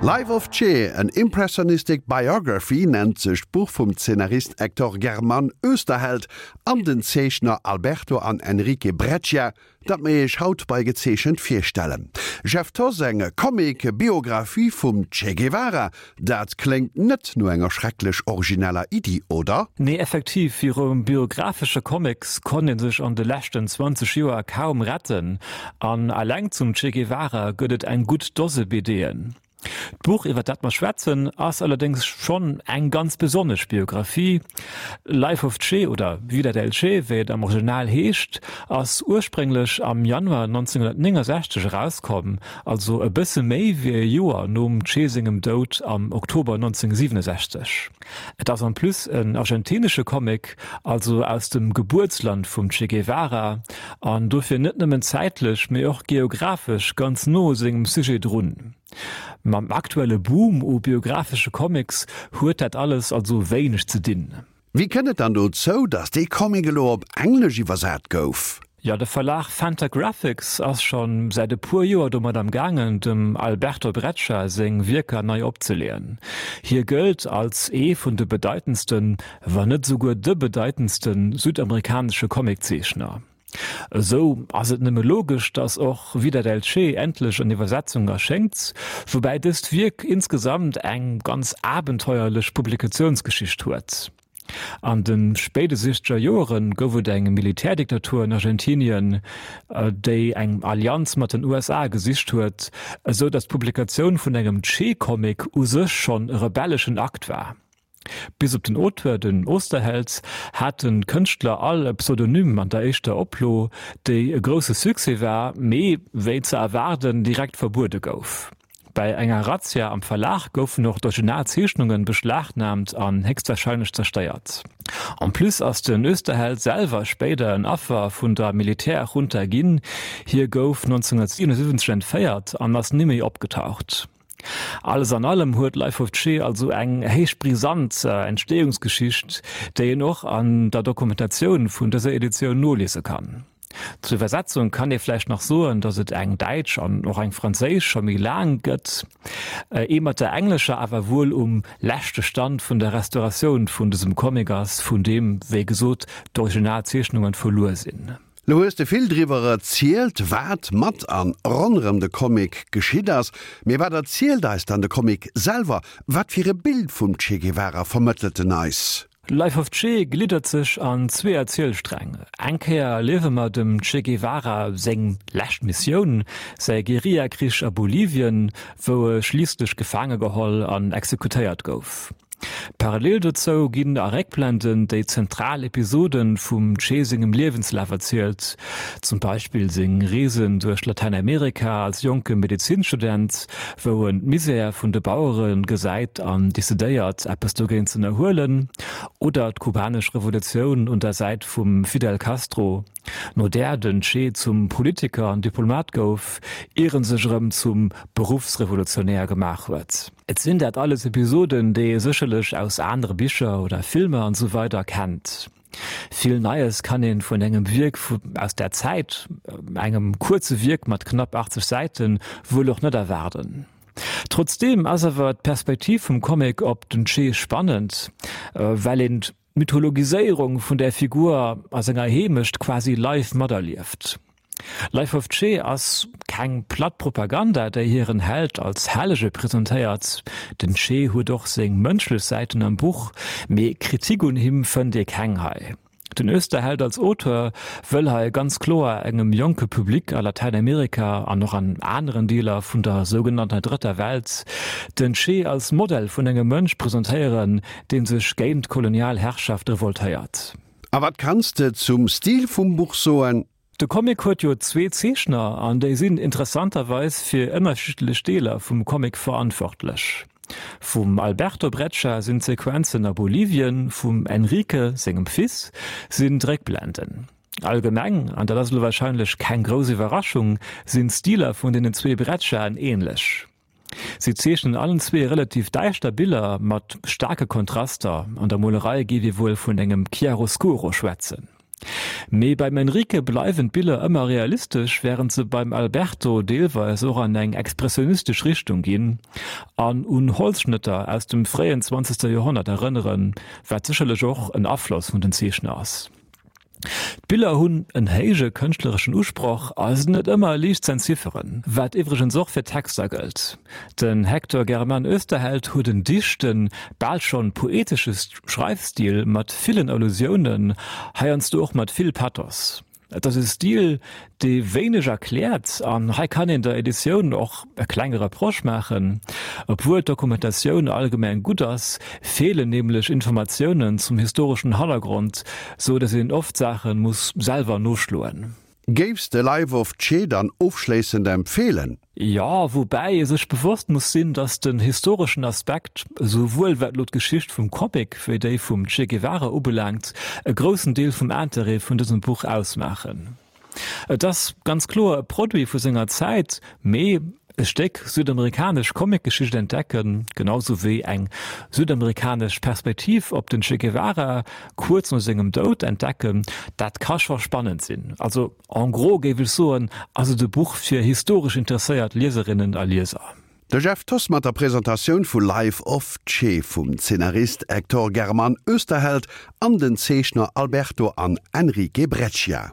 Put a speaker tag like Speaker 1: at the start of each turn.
Speaker 1: Life of Che, an Impressionistic Biography nennt sech d'Buch vum Zeenarist Hector Germán Oesterheld an den Zeechner Alberto an Enrique Breccia, dat mir iech haut bei Gezeechent virstellen. Jeff Thoss, Eng Comic-Biographie vum Che Guevara, dat kléngt net no enger schrecklech origineller Iddi, oder?
Speaker 2: Nee, effektiv, viru biographesche Comics konnt ee sech an de leschten 20 Joer kaum retten, an eleng zum Che Guevara gëtt et eng gutt Dose BDen. D'Buch, iwwer dat mer schwätzen, ass allerdéngs schonn eng ganz besonnesch Biographie. Life of Che, oder Vida del Che, wéi et am Original heescht, ass ursprénglech am Januar 1969 erauskomm, also e bësse méi wéi e Joer nom Che sengem Doud am Oktober 1967. Et ass en plus en argentinesche Comic, also aus dem Gebuertsland vum Che Guevara, an dofir net nëmmen zäitlech, mee och geographesch ganz no u sengem Sujet drun. Mam aktuelle Boom u biographesche Comics huet dat alles also wéineg ze dinn.
Speaker 1: Wéi kënnt et dann dozou, datt dee Comic elo op Englesch iwwersat gouf?
Speaker 2: Jo, de Verlag Fantagraphics ass scho säit e puer Joer domat am gaangen, dem Alberto Breccia seng Wierker nei opzeleeën. Hie gëllt als ee vun de bedeitendsten, wann net esouguer de bedeitendste südamerikanesche Comiczeechner. Esou ass et nëmme logesch, datt och Vida del Che endlech an Iwwersetzung erschéngt, woubäi dëst Wierk insgesamt eng ganz abenteuerlech Publikatiounsgeschicht huet. An de spéide sichzeger Joere gouf et eng Militärdiktatur an Argentinien, déi eng Allianz mat den USA gesicht huet, esou datt d'Publikatioun vun engem Che-Comic u sech schonn e rebelleschen Akt war. Bis op den Auteur, den Osterheld, haten d'Kënschtler all e Pseudonym an der éischter Oplo, déi e grousse Succès war, mee wéi ze erwaarden direkt verbuede gouf. Bei enger Razzia am Verlag goufen och d'Originalzeechnungen beschlagnahmt an héchstwahrscheinlech zerstéiert. En plus ass den Oesterheld selwer spéider en Affer vun der Militärjunta ginn, hie gouf 1977 entféiert an ass ni méi opgetaucht. Alles an allem huet Life of Che also eng héich brisant Entstehungsgeschicht, déi een och an der Dokumentatioun vun dëser Editioun noliese kann. Zur Iwwersetzung kann ee vläicht nach soen, datt et eng däitsch an och eng franséisch scho méi laang gëtt, ee mat der englescher awer wuel um leschte Stand vun der Restauratioun vun dësem Comic ass, vun deem, wéi gesot, d'Originalzeechnungen verluer sinn.
Speaker 1: Lo hues de vill driwwer erzielt, wat mat an ronderëm de Comic geschitt ass. Mee wat erzielt eis dann de Comic selwer? Wat fir e Bild vum Che Guevara vermëttelt en eis?
Speaker 2: Life of Che gliddert sech an zwee Erzielsträng. Eng Kéier erliewe mer dem Che Guevara seng lescht Missioun, säi Guerillakrich a Bolivien, wou e schliisslech gefaange geholl an exekutéiert gouf. Parallel dozou ginn a Réckblenden déi zentral Episode vum Che sengem Liewenslaf erzielt, zum Beispill seng Reesen duerch Latäinamerika als jonke Medezinstudent, wou en d'Misär vun de Bauere gesäit an decidéiert, eppes dogéint z'ënnerhuelen, oder d'kubanesch Revolutioun un der Säit vum Fidel Castro, no där den Che zum Politiker an Diplomat gouf, ier en sech erëm zum Beruffsrevolutionär gemaach huet. Et sinn dat alles Episoden, déi ee sécherlech aus anere Bicher oder Filmer an esou weider kennt. Vill Neies kann een vun engem Wierk aus där Zäit, engem kuerze Wierk mat knapp 80 Säiten, wuel och net erwaarden. Trotzdeem ass awer d'Perspektiv vum Comic op den Che spannend, well een d'Mythologiséierung vun där Figur a senger Heemecht quasi live materlieft. Life of Che ass keng platt Propaganda, déi hiren Held als Hellege presentéiert. Den Che huet och seng mënschlech Säiten am Buch, mee Kritik un him fënnt ee keng hei. Den Oesterheld als Auteur wëll hei ganz kloer engem jonke Public a Latäinamerika an och an aneren Deeler vun der sougenannter Drëtter Welt den Che als Modell vun engem Mënsch presentéieren, dee sech géint d'kolonial Herrschaft revoltéiert.
Speaker 1: A wat kanns de zum Stil vum Buch soen?
Speaker 2: De Comic huet jo zwee Zeechner an déi sinn interessanterweis fir ënnerschiddlech Deeler vum Comic verantwortlech. Vum Alberto Breccia sinn d'Sequenzen a Bolivien, vum Enrique sengem Fils sinn d'Réckblenden. Allgemeng, an dat ass elo warscheinlech keng grouss Iwwerraschung, sinn d'Stiler vun deenen zwee Brecciaen änlech. Si zeechnen allen zwee relativ däischter Biller mat staarke Kontraster, an der Molerei géif ee wuel vun engem Chiaroscuro schwätzen. Mee beim Enrique bleiwen d'Biller ëmmer realistesch, wärend se beim Alberto deelweis och an eng expressionistesch Richtung ginn an un Holzschnëtter aus dem fréien zwanzegste Joerhonnert erënneren, wat sécherlech och en Afloss vun den Zeechner ass. D'Biller hunn en héije kënschtlereschen Usproch a sinn net ëmmer liicht z'entzifferen, wat iwwregens och fir d'Texter gëllt. Den Hector Germán Oesterheld huet en dichten, bal schonn poetesche Schreifstil mat villen Allusiounen, heiansdo och mat vill Pathos. Et ass e Stil, dee wéineg erkläert, an hei kann een der Editioun och e klenge Reproche maachen. Obwuel d'Dokumentatioun allgemeng gutt ass, feelen nämlech Informatiounen zum historeschen Hannergrond, sou datt een oft Saache muss selwer noschloen.
Speaker 1: Géifs de Life of Che dann ofschléissend empfeelen?
Speaker 2: Jo, woubäi ee sech bewosst muss sinn, datt den historeschen Aspekt, esouwuel wat elo d'Geschicht vum Comic wéi déi vum Che Guevara ubelaangt, e groussen Deel vum Interêt vun dësem Buch ausmaachen. Et ass ganz kloer e Produit vu senger Zäit, mee e Stéck südamerikanesch Comicgeschicht entdecken, genau sou wéi eng südamerikanesch Perspektiv op den Che Guevara kuerz no sengem Doud entdecken, dat ka scho spannend sinn. Also En gros géif ech soen, ass et e Buch fir historesch interesséiert Lieserinnen a Lieser.
Speaker 1: De Jeff Thoss mat der Presentatioun vu Life of Che vum Zeenarist Hector Germán Oesterheld an den Zeechner Alberto an Enrique Breccia.